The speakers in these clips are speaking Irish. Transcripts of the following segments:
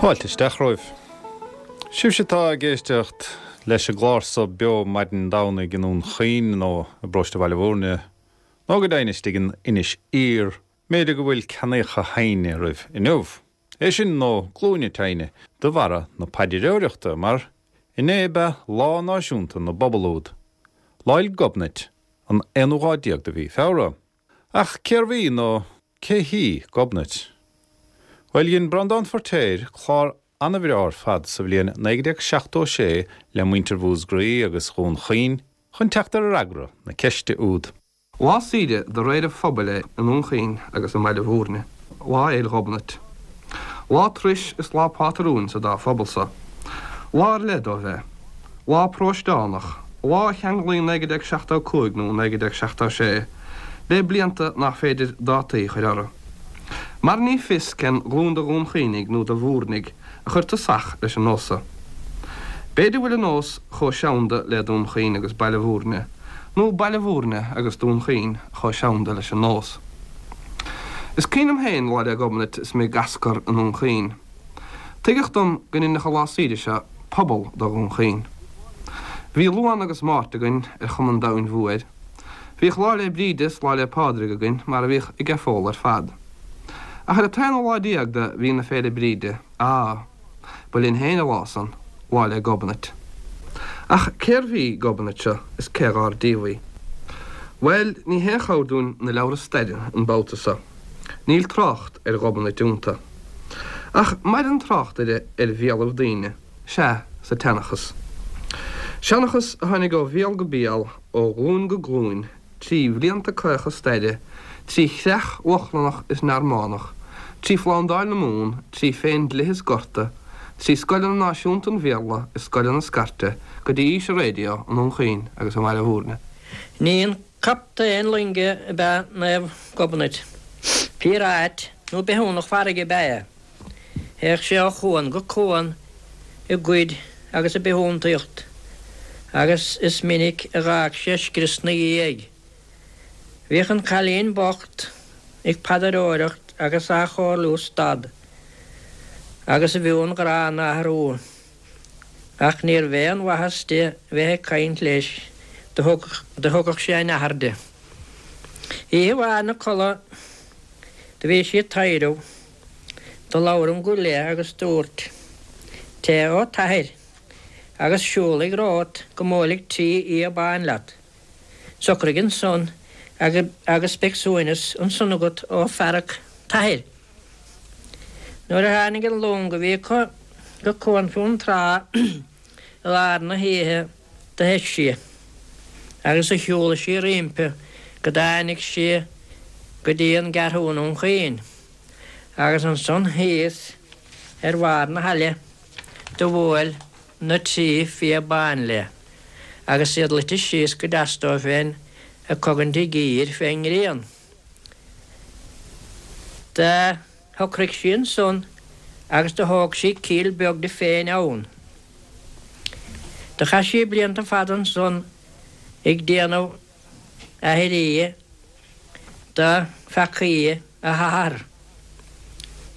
Fáilte isteach romhaibh. Sibhse atá ag éisteacht leis an gclár so beo maidin Domhnaigh i nDún Chaoin nó i bparóiste Bhaile Bhúirne, nó go deimhin istigh in Inis Oírr, mb'fhéidir go bhfuil ceannaíocha th'ainn oraibh inniu. É sin nó glúine t'ainn de bharra na paidreoireachta, mar inné ab ea Lá Náisiúnta na bPobal úd, Lá 'le Gobnait, an aonú lá déag de mhí Feabhra. Ach cérbh í nó cé hí Gobnait? Bhuel, dhein Breandán Feirtéar clár ana-bhreá ar fad sa bhliain 1976 le muintir Mhúscraí agus Dhún Chaoin chun teacht ar fhreagra na ceiste úd. Lá saoire de réir an phobail é i nDún Chaoin agus i mBaile Bhúirne, Lá Fhéil' Ghobnait. Lá turais is lá pátrúin sa dá phobal so. Lá ar leith dóibh é. Lá paróisteánach, lá a cheanglaíonn 1975 nó 1976 le blianta nach féidir dátaí a chur orthu. Mar ní fios cén ghlúin de Dhún Chaoinigh nó de Bhúirnigh a chuir tosach leis an nós so. B'fhéidir bhfuil an nós chomh seanda le Dún Chaoin agus Baile Bhúirne, nó Baile Bhúirne agus Dún Chaoin chomh seanda leis an nós. Is cuimhin liom féin Lá 'le Gobnait is mé ag ascar i nDún Chaoin. Tuigeadh dom go ndeinfeadh an lá saoire seo pobal de Dhún Chaoin. Bhí Luan agus Máirt againn ar chuma an domhain mhóir. Bhíodh Lá 'le Bríde is Lá 'le Pádraig againn mar a bhíodh ag an phobal ar fad. Ach ar an t-aonú lá déag de mhí na Féile Bríde, á! Ba linn féin an lá san, Lá 'le Gobnait. Ach cérbh í Gobnait seo is cé dhár díobh í? Bhuel, ní haon chabhair dúinn na leabhra staire an babhta so. Níl trácht ar Ghobnait iontu. Ach maireann trácht uirthi ar bhéalaibh daoine, sea, sa tseanchas. Seanchas a tháinig ó bhéal go béal, ó ghlúin go glúin, trí bhlianta caocha staire, trí chreach Lochlannach is Normannach, trí Phlándáil na Mumhan, trí Phéindlithe is Gorta, trí scoileanna náisiúnta an Bhéarla is scoileanna scairte, go dtí aois an raidió i nDún Chaoin agus i mBaile Bhúirne. Ní aon captaen loinge ab ea Naomh Gobnait. Píoráit nó bithiúnach farraige ab ea é. Théadh sé ó chuan go cuan ag goid agus ag bithiúntaíocht agus is minic a dh'fhág sé scrios 'na dhiaidh. Bhíodh an cailín bocht ag paidreoireacht agus á chomhairliú stad agus a mhionghráin a athrú, ach níorbh aon mhaitheas di bheith ag caint leis, do thugadh sé a nathair di. Oíche amháin 'na codladh do bhí sí ag taidhreamh. Do labhair an guth léi agus dúirt, Teith ó t'athair, agus siúlaigh romhat go mbuailfidh trí fhia bán leat. Socraigh ansan agus beidh suaimhneas ansan agat ó fhearg t'athar. Nuair a tháinig an long a bhí acu go Cuan Fionntrá i lár na hoíche do theith sí agus do shiúlaigh sí roimpi go dtáinig sí go dtí an gCeathrú i nDún Chaoin. Agus ansan thíos ar bharr na haille do bhuail na trí fia bán léi, agus iad luite síos go deas dóibh féin ag cogaint a gcíor fén ngrian. Do shocraigh sí ansan agus do thóg sí cill beag di féin ann. Do chaith sí blianta fada ansan ag déanamh aithrí do pheacaí a hathar,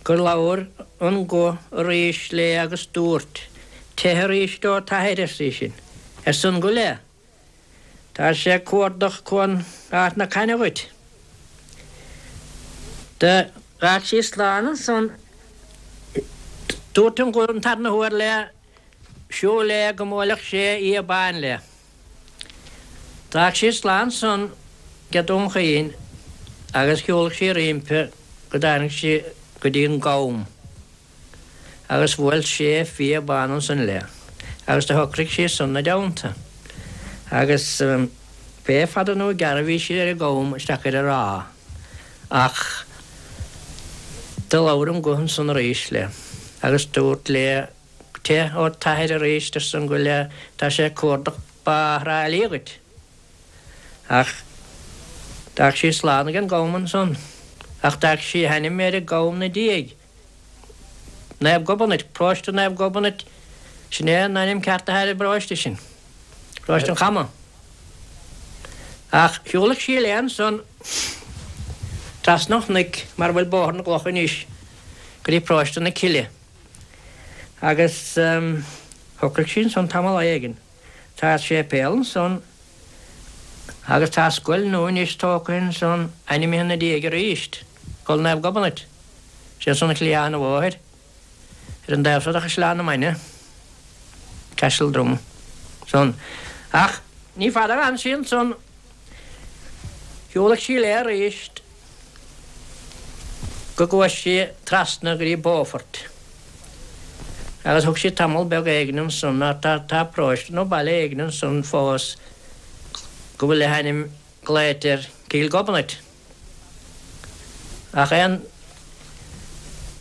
gur labhair an guth arís léi agus dúirt, Teith arís ó t'athair, arsa í sin, arsa an guth léi, tá sé ag cuardach Cuan Ard na Caithne dhuit. Do dh'fhág sí slán ansan. Dúirt an guth an tarna huair léi, Siúl léi go mbuailfeadh sé fhia bán léi. D'fhág sí slán ansan ag Dún Chaoin agus shiúlaigh sí roimpi go dtáinig sí go dtí an gCam agus bhuail sé fia bán ansan léi agus do shocraigh sí ansan 'na dteannta agus pé fada nó gearr a bhí sí ar an gCam isteach ar an ráth ach do labhair an guth ansan arís léi agus dúirt léi Teith ó t'athair arís, arsa an guth léi, tá sé ag cuardach Bá Thrá Lí dhuit. Ach d'fhág sí slán ag an gCam ansan. Ach d'fhág sí a hainm ar an gCam 'na diaidh. Naomh Gobnait, Paróiste Naomh Gobnait, sin é an ainm ceart atá ar an bparóiste sin, Paróiste an Chama. Ach shiúlaigh sí léi ansan trasna an chnoic mar a bhfuil Bóthar na gCloch anois go dtí Paróiste na Cille. Agus shocraigh sí ansan tamall éigin. Tá séipéal ansan agus tá scoil nua anois tógtha ansan ainmnithe ina diaidh arís, Scoil Naomh Gobnait. Sé ansan ar chliathán an bhóthair ar an dtaobh seo de Chaisleán na Mainge, Castledrum, san. Ach ní fada a d'fhan sí ansan, shiúlaigh sí léi arís go gcuaigh sí trasna go dtí Beaufort agus thug sí tamall beag éigin ansan, tá tá paróiste nó baile éigin ansan fós go bhfuil a hainm glaoite air Cill Ghobnait. Ach aon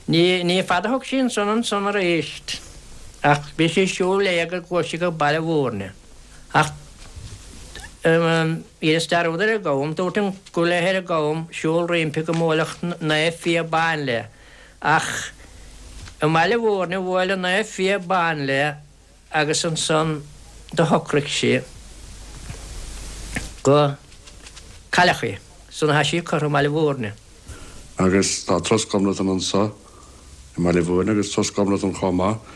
ní, ní fada a thug sí ansan ansan arís ach bhí sí ag siúl léi go gcuaigh sí go Baile Mhúirne. Ach dheineas dearúd ar an gCam, dúirt an go bhfuil ar an gCam siúl roimpi go mbuailfeadh Naomh Fia Ban léi. Ach i mBaile Mhúirne bhuail an Naomh Fia Ban léi agus ansan do shocraigh sí go cailleadh í. San atá sí curtha i mBaile Mhúirne. Agus tá Turas Ghobnatan anso i mBaile Mhúirne agus Turas Ghobnatan chomh maith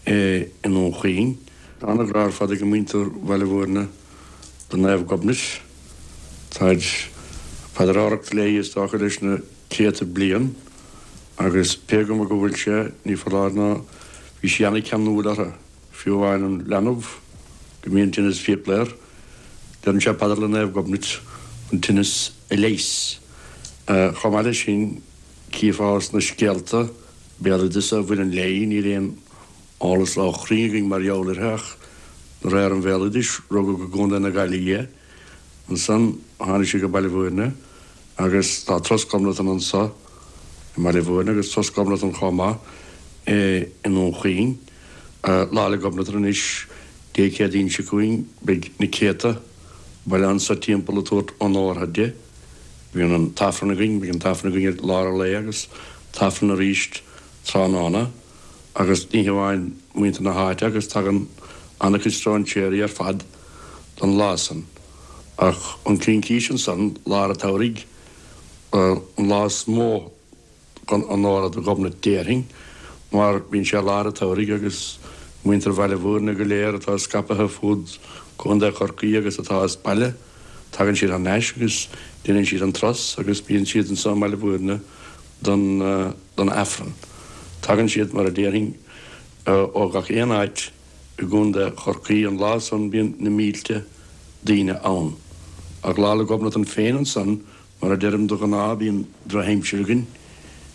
i nDún Chaoin. Tá ana-ghrá ar fad ag muintir Bhaile Mhúirne do Naomh Gobnait. Táid ag paidreoireacht léi is dócha leis na céadta bliain agus pé cuma go bhfuil sé, ní foláir nó bhí sí ana-cheanúil orthu, fiú amháin an leanbh go mbíonn tinneas fiacla air, deireann sé paidir le Naomh Gobnait an tinneas a leigheas. Chomh maith leis sin, cífeá sna scéalta béaloideasa a bhaineann léi, níl aon eolas ró-chruinn againn mar gheall uirthi ach de réir an bhéaloidis, rugadh i gContae na Gaillimhe í. Ansan tháinig sí go Baile Mhúirne agus tá Turas Ghobnatan anso i mBaile Mhúirne agus Turas Ghobnatan chomh maith i nDún Chaoin. Lá 'le Gobnatan anois Dé Céadaoin seo chugainn beidh na céadta baile anso timpeall ag tabhairt onórtha di. Bíonn an t-Aifreann againn, beidh an t-Aifreann againn i lár an lae agus t-Aifreann arís tráthnóna. Agus ní hamháin muintir na háite agus tagann an-chuid stróinséirí ar fad don lá san. Ach an Cincís ansan, lár an tsamhraidh, an lá is mó chun onóra do Ghobnait déarfainn, mar bíonn sé lár an tsamhraidh agus muintir Bhaile Mhúirne go léir atá scaipthe fud Contae Chorcaí agus atá as baile, tagann siad thar n-ais agus déanann siad an turas agus bíonn siad anso i mBaile Mhúirne don don Aifreann. Tagann siad, mar a déarfainn, ó gach aon áit i gContae Chorcaí. An lá san bíonn na mílte daoine ann. Ach Lá 'le Gobnatan féin ansan, mar a deirim de ghnáth, bíonn drochaimsir againn,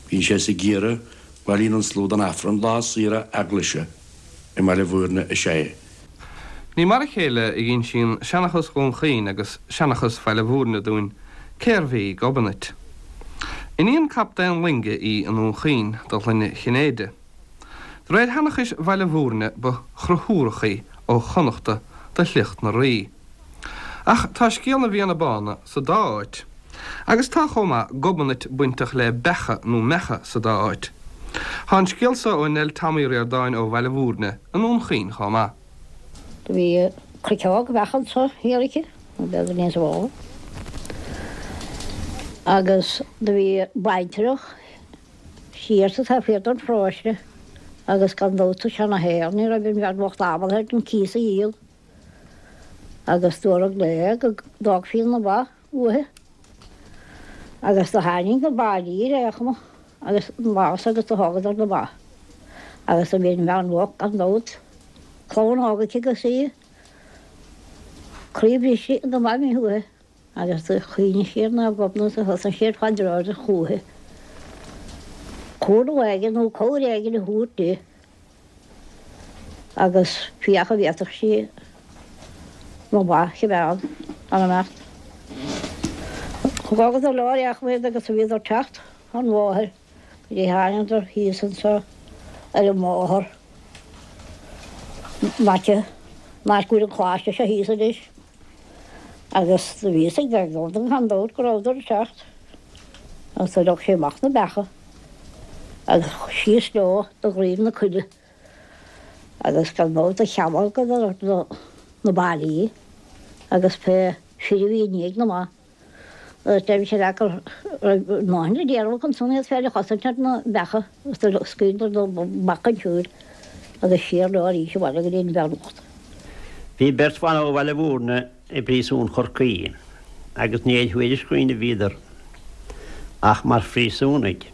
bíonn sé sa gheimhreadh, bailíonn an slua don Aifreann. Lá saoire eaglaise i mBaile Mhúirne is ea é. Ní mar a chéile a dh'insíonn seanchas Dhún Chaoin agus seanchas Bhaile Mhúirne dúinn cérbh í Gobnait. Iníon captaen loinge í i nDún Chaoin de shloinne Chinnéide. De réir sheanchais Bhaile Mhúirne ba Chonchúrach í ó Chonnachta de shliocht na Rí. Ach tá scéal na bhFianna Bána sa dá áit. Agus tá chomh maith Gobnait bainteach le beacha nó meacha sa dá áit. Tá an scéal so ó Nell Tom Uí Ríordáin ó Bhaile Mhúirne i nDún Chaoin chomh maith. Do bhí cruiceog bheach anso thiar aici, nó b'fhéidir níos mó, agus do bhí baintreach siar sa taobh thiar den pharóiste agus gan dabht sa seana-shaol ní raibh an bhean bhocht ábalta ar an cíos a dhíol agus dúradh léi go dtógfaí na ba uaithi agus do tháinig na baillí ar aon chuma agus an lá agus do thógadar na ba agus do bhí an bhean bhocht gan dabht, clann óg aici agus í croí briste na ba imithe uaithi agus do chuimhnigh sí ar Naomh Gobnait agus thosaigh sí ag paidreoireacht chúithi. Cúnamh éigin nó cabhair éigin a thabhairt di. Agus féach an bhféadfadh sí na ba a choimeád gan imeacht. Thógadar leo ar aon chuma iad agus bhíodar ag teacht an bhóthair go dtí thángadar thíos anso ar an mbóthar in aice an áit go bhfuil an coláiste seo thíos anois. Agus do bhí fhios ag Gobnait gan dabht go rabhadar ag teacht agus do leog sí amach na beacha agus síos leo do dhroim na coille agus gan dabht do chealgadar na baillí agus pé fir a bhí i ndiaidh na mba agus deirimse leat go raibh a ndóthain le déanamh acu ansan iad féin a chosaint ar na beacha agus do scaoileadar na beacha chun siúil. Agus siar leo arís abhaile go dtí an bhean bhocht. Bhí beirt bhan ó Bhaile Mhúirne i bpríosún Chorcaí agus ní ar thuairisc dhaoine a bhíodar ach mar phríosúnaigh.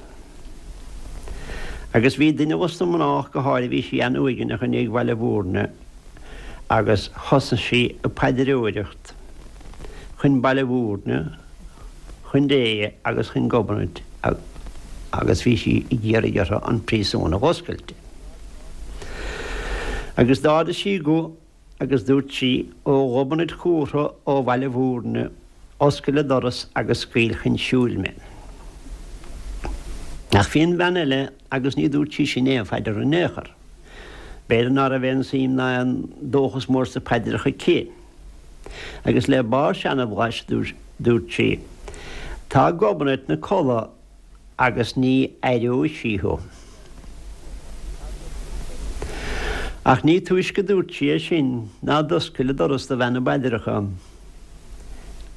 Agus bhí duine dos na mná ach go háirithe, bhí sí an-uaigneach i ndiaidh Bhaile Mhúirne agus thosaigh sí ag paidreoireacht chun Baile Mhúirne, chun Dé agus chun Gobnait agus bhí sí ag iarraidh orthu an príosún a dh'oscailt. Agus d'ardaigh sí a guth agus dúirt sí, Ó Ghobnait Chumhra ó Bhaile Mhúirne, oscail an doras agus scaoil chun siúil mé. Ach bhí an bhean eile agus ní dúirt sí sin aon phaidir in aon chor. B'fhéidir ná raibh aon suim ná aon dóchas mór sna paidreacha aici. Agus le barr seanbhlais dúirt sí, Tá Gobnait 'na codladh agus ní aireoidh sí thú. Ach ní túisce dúirt sí é sin ná d'oscail an doras do bhean na bpaidreacha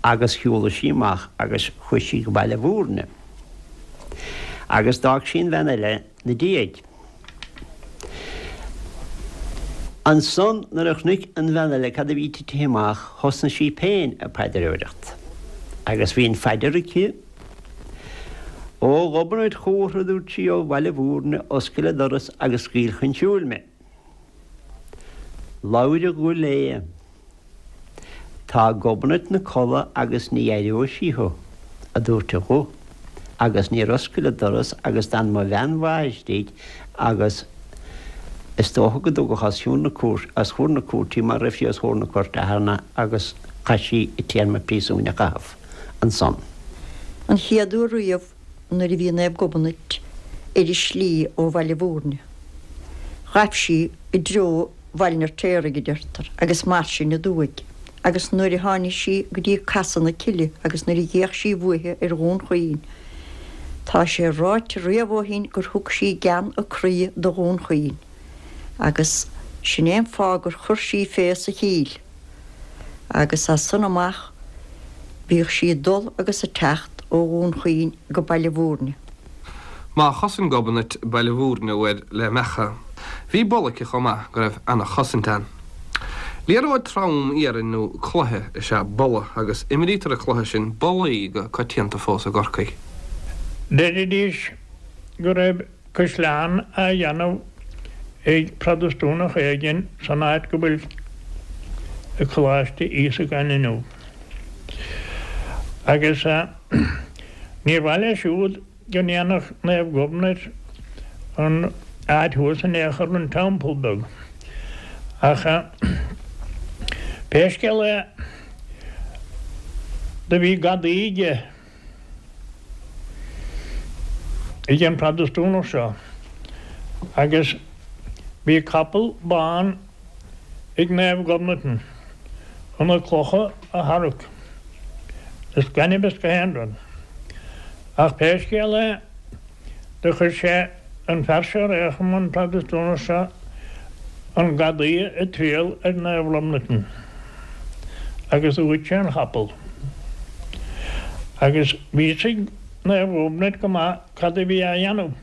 agus shiúlaigh sí amach agus chuaigh sí go Baile Mhúirne agus d'fhág sí an bhean eile 'na diaidh. Ansan nuair a chonaic an bhean eile cad a bhí titithe amach thosnaigh sí féin ag paidreoireacht agus bhí an phaidir aici, Ó Ghobnait Chumhra, a dúirt sí, ó Bhaile Mhúirne, oscail an doras agus scaoil chun siúil mé. Labhair an guth léi. Tá Gobnait 'na codladh agus ní aireoidh sí thú, a dúirt an guth, agus níor oscail an doras agus d'fhan mo bhean mhaith istigh agus is dócha go dtugadh os cionn na cúirte, os chomhair na cúirte í mar raibh sí os chomhair na cúirte cheana agus chaith sí a téarma príosúin a chaitheamh ansan. An chéad uair riamh nuair a bhí Naomh Gobnait ar a slí ó Bhaile Mhúirne, ghaibh sí i dtreo Bhaile an Fheirtéaraigh, a deirtear, agus mar sin aduaidh, agus nuair a tháinig sí go dtí Casadh na Cille agus nuair a d'fhéach sí uaithi ar Dhún Chaoin, tá sé ráite riamh ó shin gur thug sí gean a croí do Dhún Chaoin, agus sin é an fáth gur chuir sí fé sa Chill, agus as san amach bhíodh sí ag dul agus ag teacht ó Dhún Chaoin go Baile Mhúirne. Má chosain Gobnait Baile Mhúirne uair le meacha, bhí boladh aici chomh maith go raibh ana-chosaint ann. Liathróid trom iarainn nó cloiche is ea bola agus imrítear an cluiche sin bolaí go coitianta fós i gCorcaigh. Deiridís go raibh caisleán á dhéanamh ag Protastúnach éigin san áit go bhfuil Coláiste Íosagáin inniu. Agus níor mhaith leis siúd go ndéanfadh Naomh Gobnait an áit thuas in aon chor, an teampall beag. Ach pé scéal é, do bhí gadaí aige. ag an Protastúnach seo agus bhí capall bán ag Naomh Gobnatan chun na clocha a tharrac is gainimh is gach aon rud. Ach pé scéal é do chuir sé an fear seo ar aon chuma, an Protastúnach seo, an gadaí ag triall ar Naomh Gobnatan agus do ghoid sé an chapall. Agus bhí fhios ag Naomh Gobnait go maith cad a bhí á dhéanamh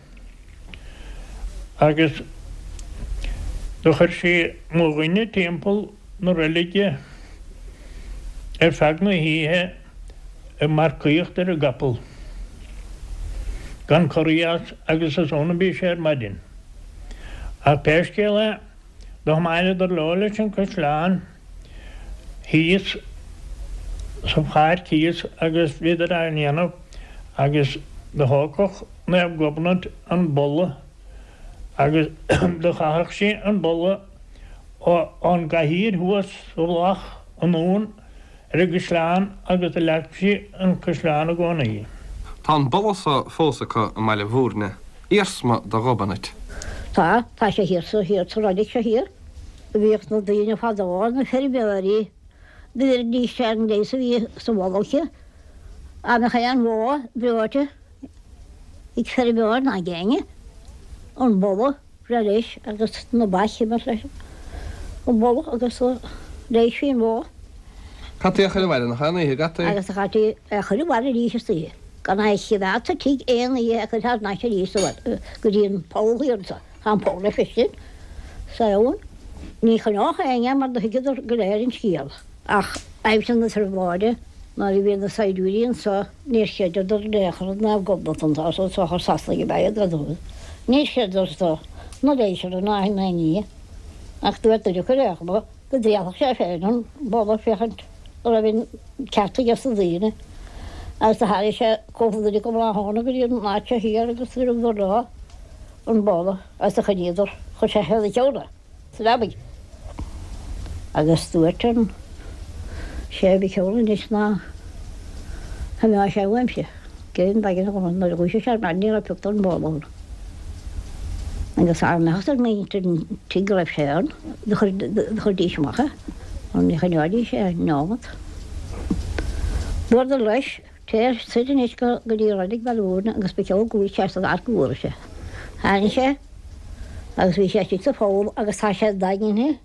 agus do chuir sí mo dhuine timpeall na reilige ar feadh na hoíche ag marcaíocht ar an gcapall gan corraí as agus is ann a bhí sé ar maidin. Ach pé scéal é, do thiomáineadar leo leis an caisleán thíos sa pháirc thíos agus bhíodar á ndéanamh agus do thógfadh Naomh Gobnait an boladh agus do chaitheadh sí an boladh ón gcathaoir thuas sa mhullach anonn ar an gcaisleán agus do leag sí an caisleán i gcónaí. Tá an boladh so fós acu i mBaile Mhúirne, iarsma de Ghobnait. Tá, tá sé thiar sa, thiar sa reilig seo thiar. Bhíodh na daoine fadó, na feirmeoirí, do bheiridís ar an leigheas a bhí sa bholadh aici. Dá mbeadh aon bhó breoite ag feirmeoir ná ag éinne, an boladh breá leis agus na ba chime leis an boladh agus leighisfí an bhó. Caití a chur abhaile nach aon oíche, gcaití? Agus do chaití é a chur abhaile arís istoíche. Gan é a chimeád sa tigh aon oíche a chur thar n-ais arís go dtí an poll thiar anso. Tá an poll le feiscint. Sa abhainn. Ní choinneodh éinne mar do thuigeadar go léir an scéal. Ach aimsir na trioblóide nuair a bhí na saighdiúirí anso níor chreideadar in aon chor i Naomh Gobnatan tá so sochar Sasanaigh ab ea iad gan dabht. Níor chreideadar so ná léisear ná aon ní. Ach dúirt duine acu ar aon chuma go dtrialfadh sé féin an boladh féachaint an raibh an ceart aige sna daoine. Agus do tharraing sé cúpla duine acu tráthnóna go dtí an áit seo thiar agus do thugadar leo an boladh agus do choinníodar, chuir sé thar a cheann é sa leabaidh. Agus dúirt an sé ba cheol anois ná himeoidh sé uaimse. Cén mhaidin a dhul nuair a dhúisigh sé ar maidin ní raibh pioc den bholadh ann. Agus dá mbeadh fhios ag muintir an tí go raibh sé ann, do chuirdís amach é, mar ní choinneoidís é neomat. Dúradar leis, Téir soir anois go dtí Reilig Bhaile Mhúirne agus ba cheol go bhfuil sé san áit go bhfuair sé. Tháinig sé agus bhí sé istigh sa pholl agus tá sé daingnithe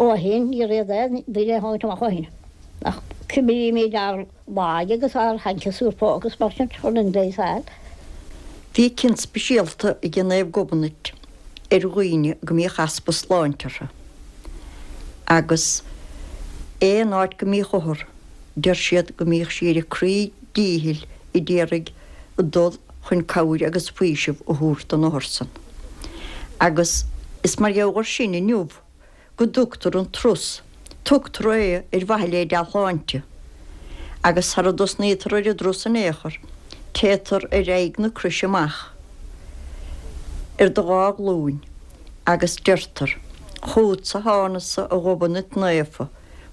ó shin, níor fhéad aon duine é a thabhairt amach ó shin. Ach cuimrímid ár laige agus ár hancaí phóca agus mar sin chun an leigheas a fháil. Bhí cion speisialta ag Naomh Gobnait ar dhaoine go mbíodh easpa sláinte orthu agus aon áit go mbíodh othar deir siad go mbíodh sí ar a croí díchill a d'iarraidh dul chun cabhair agus faoiseamh a thabhairt don othar san. Agus is mar gheall air sin inniu go dtugtar an turas, tugtar é ar mhaithe le dea-shláinte. Agus sara dtosnaítear ar an dturas in aon chor, téitear ar aghaidh na croise amach ar do dhá ghlúin agus deirtear, Chugatsa thánasa a Ghobnait Naofa,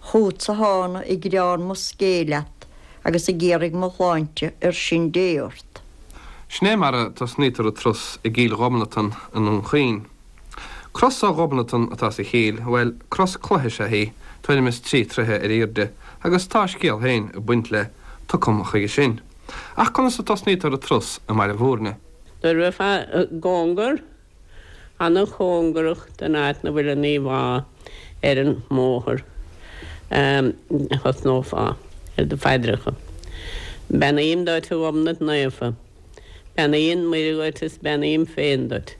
Chugatsa thána ag gearán mo scéil leat agus ag iarraidh mo shláinte ar sin Dé ort. Sin é mar a tosnaítear an turas i gCill Ghobnatan i nDún Chaoin. Cros ó Ghobnatan atá sa chill, bhuel, cros cloiche is ea í, tuairim is trí troithe ar aoirde, agus tá a scéal féin ag baint lei, tiocfam chuige sin. Ach conas a tosnaítear an turas i mBaile Mhúirne? Nuair a bheifeá i gcóngar, ana-chóngarach don áit 'na bhfuil an íomhá ar an mbóthar, thosnófá ar do phaidreacha. Beannaím duit, a Ghobnait Naofa. Beannaíonn Muire dhuit is beannaím féin duit.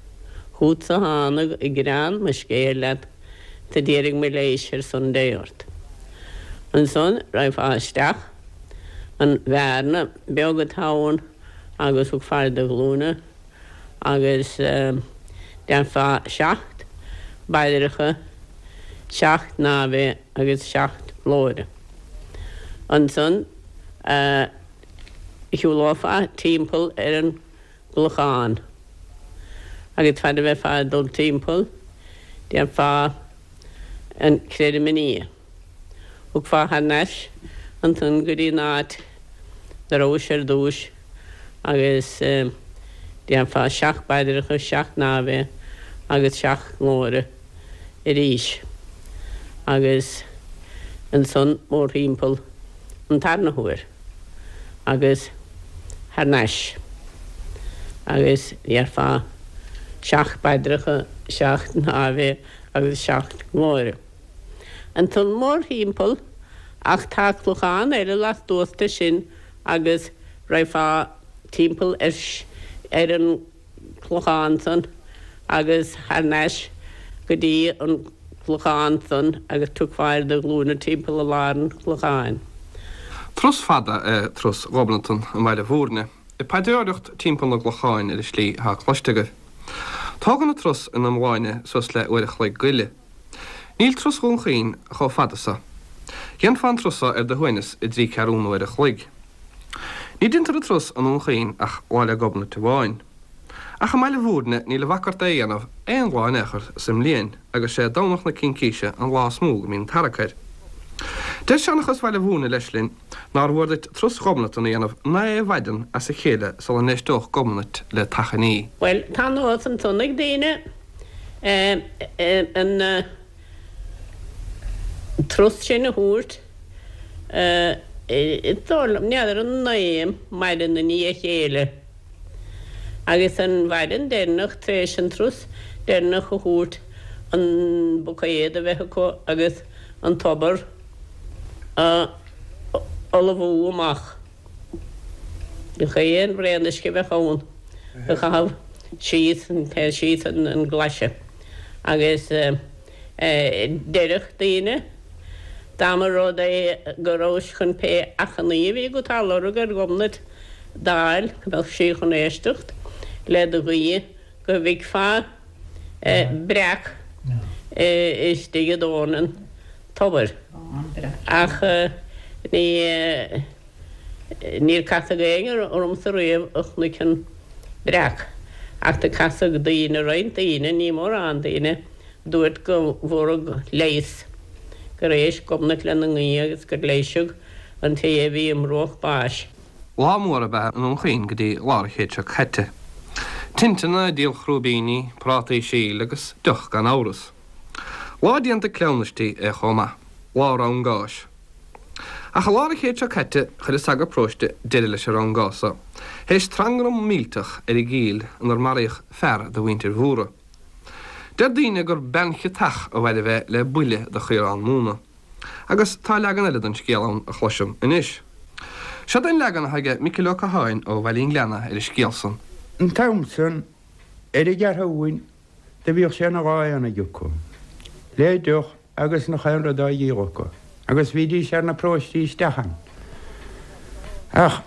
Chútsa thánag ag gearán mo scéil leat 's a d'iarraidh mo leighis ar son Dé ort. Ansan raghfá isteach an bhearna beag atá ann agus thiocfá ar do ghlúine agus déarfá seacht bpaidreacha, seacht nAve agus seacht Glóire. Ansan shiúlófá timpeall ar an gclochán agus fad a bheifeá ag dul timpeall déarfá an Creidim i nDia. Thiocfá thar n-ais ansan go dtí an áit 'na rabhais ar dtúis agus déarfá seacht bpaidreacha, seacht nAve agus seacht nGlóire arís agus ansan mórthimpeall an tarna huair agus thar n-ais agus déarfá seacht bpaidreacha, seacht nAve agus seacht nGlóire. Ansan mórthimpeall ach tá clochán eile lastuas de sin agus raghfá timpeall ar an gclochán san agus thar n-ais go dtí an clochán san agus tiocfá ar do ghlúine timpeall i lár an chlocháin. Turas fada é turas Ghobnatan i mBaile Mhúirne. Ag paidreoireacht timpeall na gclochán ar an slí atá cloiste agaibh. Tógann an turas ina iomláine suas le uair a chloig go leith. Níl turas Dhún Chaoin chomh fada so. Dhéanfá an turas so ar do shuaimhneas i dtrí ceathrúna uair a chloig. Ní deintear an turas i nDún Chaoin ach Lá 'le Gobnait amháin. Ach i mBaile Mhúirne níl a bhac ort é a dhéanamh aon lá in aon chor sa mbliain agus sé Domhnach na Cincíse an lá is mó go mbíonn tarrac air. Deir seanchas Bhaile Mhúirne leis linn nár mhór duit turas Ghobnatan a dhéanamh naoi mhaidean as a chéile sula n-éisteodh Gobnait le t'achainí. Bhuel, tá nós ansan ag daoine an turas sin a thabhairt, is dóigh liom, n'fheadar an naoi maidin i ndiaidh a chéile agus an mhaidin deireanach tar éis an turas deireanach a thabhairt an buicéad a bheith acu agus an tobar a fholmhú amach. Gach aon bhraon uisce a bheadh ann a chaitheamh síos, síos an glaise. Agus deireadh daoine, dá mba rud é go rabhais chun pé achainí a bhí agat á lorg ar Ghobnait d'fháil, go mbeadh sí chun éisteacht le do ghuí, go bhficfeá breac istigh i dtóin an tobair. Ach ní. Níor casadh éinne ormsa riamh a chonaic an breac, ach do casadh daoine, roinnt daoine, ní mórán daoine, dúirt go bhfuaradh leigheas, gur éist Gobnait lena nguí agus gur leighiseadh an té a bhí i mbruach báis. Lá mór ab ea i nDún Chaoin go dtí lár an chéid seo caite. Tinteanna, díol chrúibíní, prátaí síl agus deoch gan amhras. Lá déanta cleamhnaistí é chomh maith. Lá rann gáis. Ach i lár an chéid seo caite chuir an sagart paróiste deireadh leis an rann gáis so, théis trangram millteach ar an gCill inar maraíodh fear de mhuintir Mhórdha. Deir daoine gur bean chiotach a mhairbh é le buille de chaorán móna. Agus tá leagan eile den scéal ann a chloisim anois. Seod é an leagan atá aige Micil Ó Catháin ó Bhaile an Ghleanna ar an scéal san. An t-am san, ar an gCeathrúin, Do bhíodh sé ina lá aonaigh acu, le deoch agus nach aon rud á dhíol acu, agus bhídís ar na paróistí isteach ann. Ach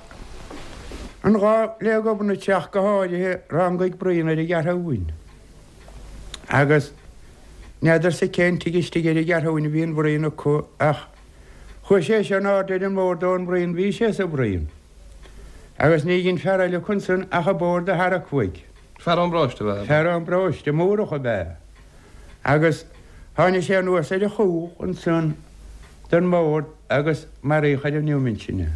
an lá le Gobnait ach go háirithe, rangaigh bruíon ar an gCeathrúin. Agus n'fheadarsa cén tigh istigh ar an gCeathrúin a bhí an bhruíon acu ach chuaigh sé seo in airde ar an mbord ón mbruíon, bhí sé sa bhruíon. Agus ní dhein fear eile acu ansan ach an bord a tharrac uaidh. Fear ón bparóiste ab ea? Fear ón bparóiste, Mórdhach ab ea. Agus tháinig sé anuas ar a chúl ansan den mbord agus maraíodh ar an neomant sin é.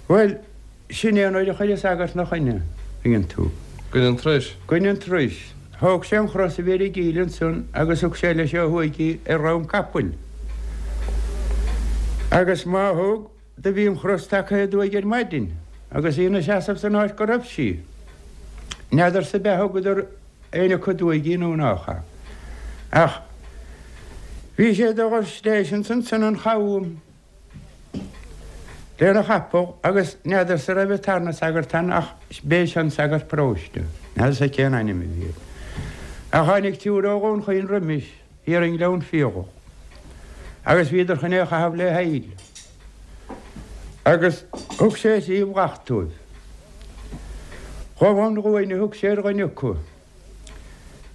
Bhuel, sin é an uair a chuir an sagart 'na choinne, tuigeann tú. Goin an turais. Goin an turais. Thóg sé an chros a bhí ar an gcill ansan agus thug sé leis ó thuaidh í ar dhroim capaill. Agus má thug. Do bhí an chros tagtha aduaidh ar maidin agus í ina seasamh san áit go raibh sí. N'fheadarsa ab ea thugadar éinne acu aduaidh í nó nách ea. Ach bhí sé do dhul th'éis ansan an chabhán lena chapall agus n'fheadarsa raibh an tarna sagart ann ach b'é seo an sagart paróiste. N'fheadarsa cén ainm a bhí air. Ach tháinig triúr ó Dhún Chaoin roimis. thiar i nGleann Fiadhach, agus bhíodar chun é a chaitheamh le haill, agus thug sé thrí bhrat dóibh. Ghabh an ghuain a thug sé ar dhuine acu,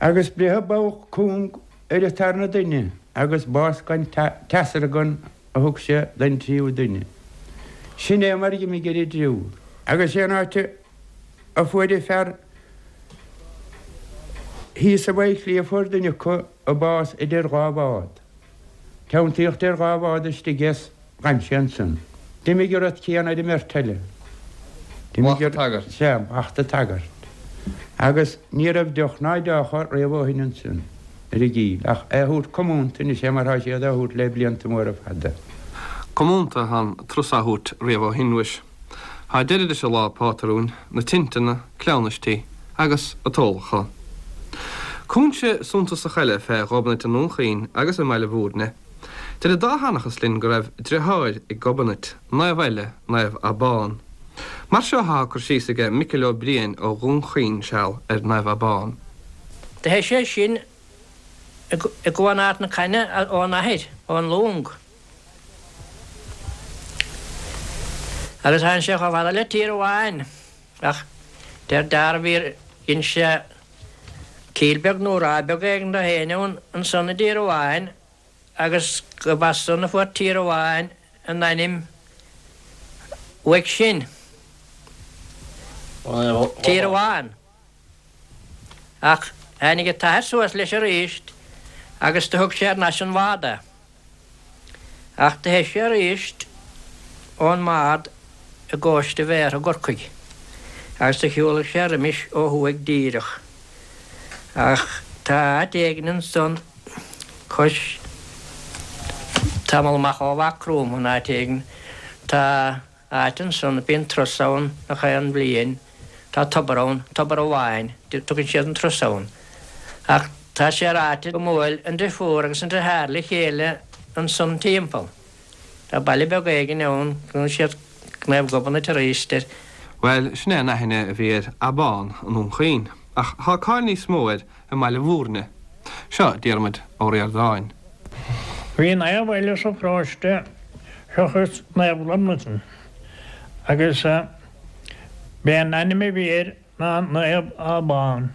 agus breitheadh bogha cúng ar an tarna duine, agus bás gan teasargan a thug sé don tríú duine. Sin é mar dh'imigh ar an dtriúr. Agus sé an áit a. a fuair an fear thíos i bhFaichillí a fuair duine acu a bás idir dhá bhád. Teanntaíodh idir dhá bhád istigh é 's dh'fhan sé ansan. D'imigh an rud céanna ar an mbeirt eile. D'imigh an tagairt. Sea, mhacht an tsagairt. Agus ní raibh deoch ná deocha riamh ó shin ansan ar an gCill, ach é a thabhairt comúnta anois é mar thá siad á thabhairt le blianta móra fada. Comúnta atá an turas á thabhairt riamh ó shin, mhuis. Tá deireadh leis an lá pátrúin, na tinteanna, cleamhnaistí agus an t-ólachán. Cúinse suntasach eile fé Ghobnait i nDún Chaoin agus i mBaile Bhúirne. Deir an dá sheanchas linn go raibh driotháir ag Gobnait, naomh eile, Naomh Abán. Mar seo athá cur síos aige Micil Ó Briain ó Dhún Chaoin seal ar Naomh Abán. Do theith sé sin i gCuan Ard na Caithne ón athair, ón long. Agus tháinig sé chomh fada le Tír Amháin, ach deir dearbh dhein sé cill beag nó ráth beag éigin do féin ann ansan i dTír Amháin agus gurb as san a fuair Tír Amháin a n-ainm uaidh sin. Tír Amháin. Ach tháinig an t-athair suas leis aríst agus do thug sé thar n-ais an bhád é. Ach do theith sé aríst ón mbád i gcóiste Bhéartha i gCorcaigh agus do shiúlaigh sé roimis ó thuaidh díreach. Ach tá áit éigin ansan cois tamall amach ó Mhaigh Chromtha in áit éigin tá áit ansan bíonn turas ann gach aon bhliain. Tá tobar ann, tobar amháin, tugann siad an turas ann. Ach tá sé ráite go mbuail an driofúr agus an driotháir le chéile ansan timpeall. Tá baile beag éigin ann, glaonn siad Naomh Gobnait aríst air. Bhuel, sin é an aithne a bhí ar Abán i nDún Chaoin, ach tá cáil níos mó air i mBaile Bhúirne. Seo Diarmuid Ó Ríordáin. Bhí naomh eile sa pharóiste seachas Naomh Gobnatan agus b'é an ainm a bhí air ná Naomh Abán.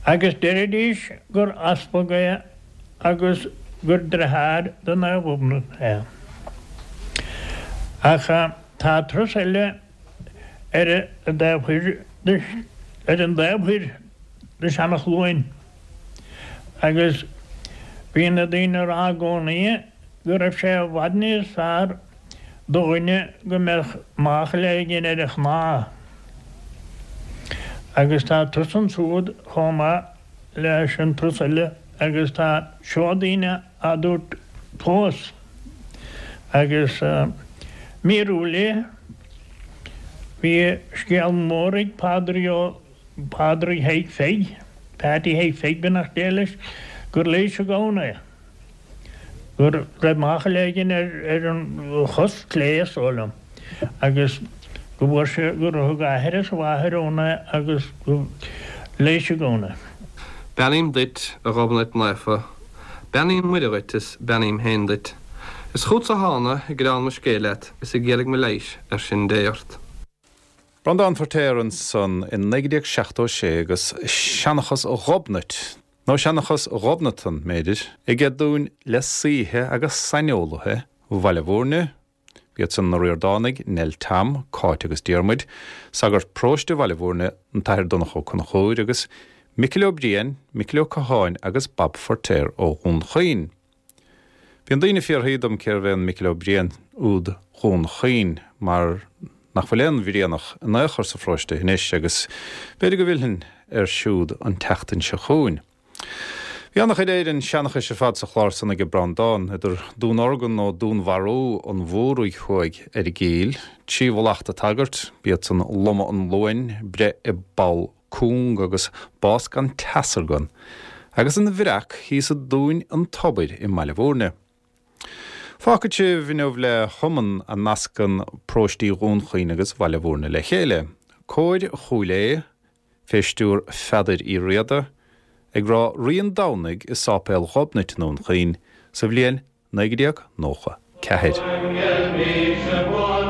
Agus deiridís gur easpag é agus gur driotháir do Naomh Gobnait é. Ach tá turas eile ar an dtaobh thoir de ar an dtaobh thoir de Seanachluain agus bhí na daoine a rá i gcónaí go raibh sé i bhfad níos fearr do dhuine go mbeadh máchail éigin ar a chnámh. Agus tá turas ansúd chomh maith leis an turas eile agus tá seodaí á dtabhairt fós agus míorúil é. Bhí scéal mór ag Pádraig Ó Pádraig Thaidhg Pheig, Peaití Thaidhg Pheig beannacht Dé leis, gur leigheas an gamhna é, go raibh máchail éigin ar an chos clé is dóigh liom agus go bhfuair sé, gur thug a athair is a mháthair ann é agus go leigheas an gamhna é. Beannaím duit, a Ghobnait Naofa, Beannaíonn Muire dhuit is beannaím féin duit. Is chútsa thána ag gearán mo scéil leat is ag iarraidh mo leighis ar sin Dé ort. Breandán Feirtéar ansan i 1976 agus Seanchas Ghobnait, nó Seanchas Ghobnatan, mb'fhéidir, aige dúinn le saoithe agus saineolaithe Bhaile Bhúirne, B'iad san na Ríordánaigh, Nell Tom, Cáit agus Diarmuid, sagart paróiste Bhaile Bhúirne, an tAthair Donncha Ó Conchúir, agus Micil Ó Briain, Micil Ó Catháin agus Bob Feirtéar ó Dhún Chaoin. Bíonn daoine ag fiafraí dom cérbh é an Micil Ó Briain úd Dhún Chaoin mar nach bhfuil aon Bhrianach in aon chor sa pharóiste anois agus b'fhéidir go bhfillfinn air siúd an tseachtain seo chugainn. Bhí an-chuid Éireann seanchais ar fad sa chlár san aige Breandán, idir dúnorgain nó dúnmharú an Mhórdha thuaidh ar an gCill, 3 mhallacht an tsagairt, b'iad san lomadh an luain, breith i bpoll cúng agus bás gan teasargan, agus an bhreac thíos i dTóin an Tobair i mBaile Bhúirne. Fágfaidh sibh inniu le hiomann a nascann paróistí Dhún Chaoin agus Bhaile Bhúirne le chéile, Cór Chúil Aodha, fé stiúr Pheadair Uí Riada, ag rá Rí an Domhnaigh i Sáipéal Ghobnait i nDún Chaoin sa bhliain 1994.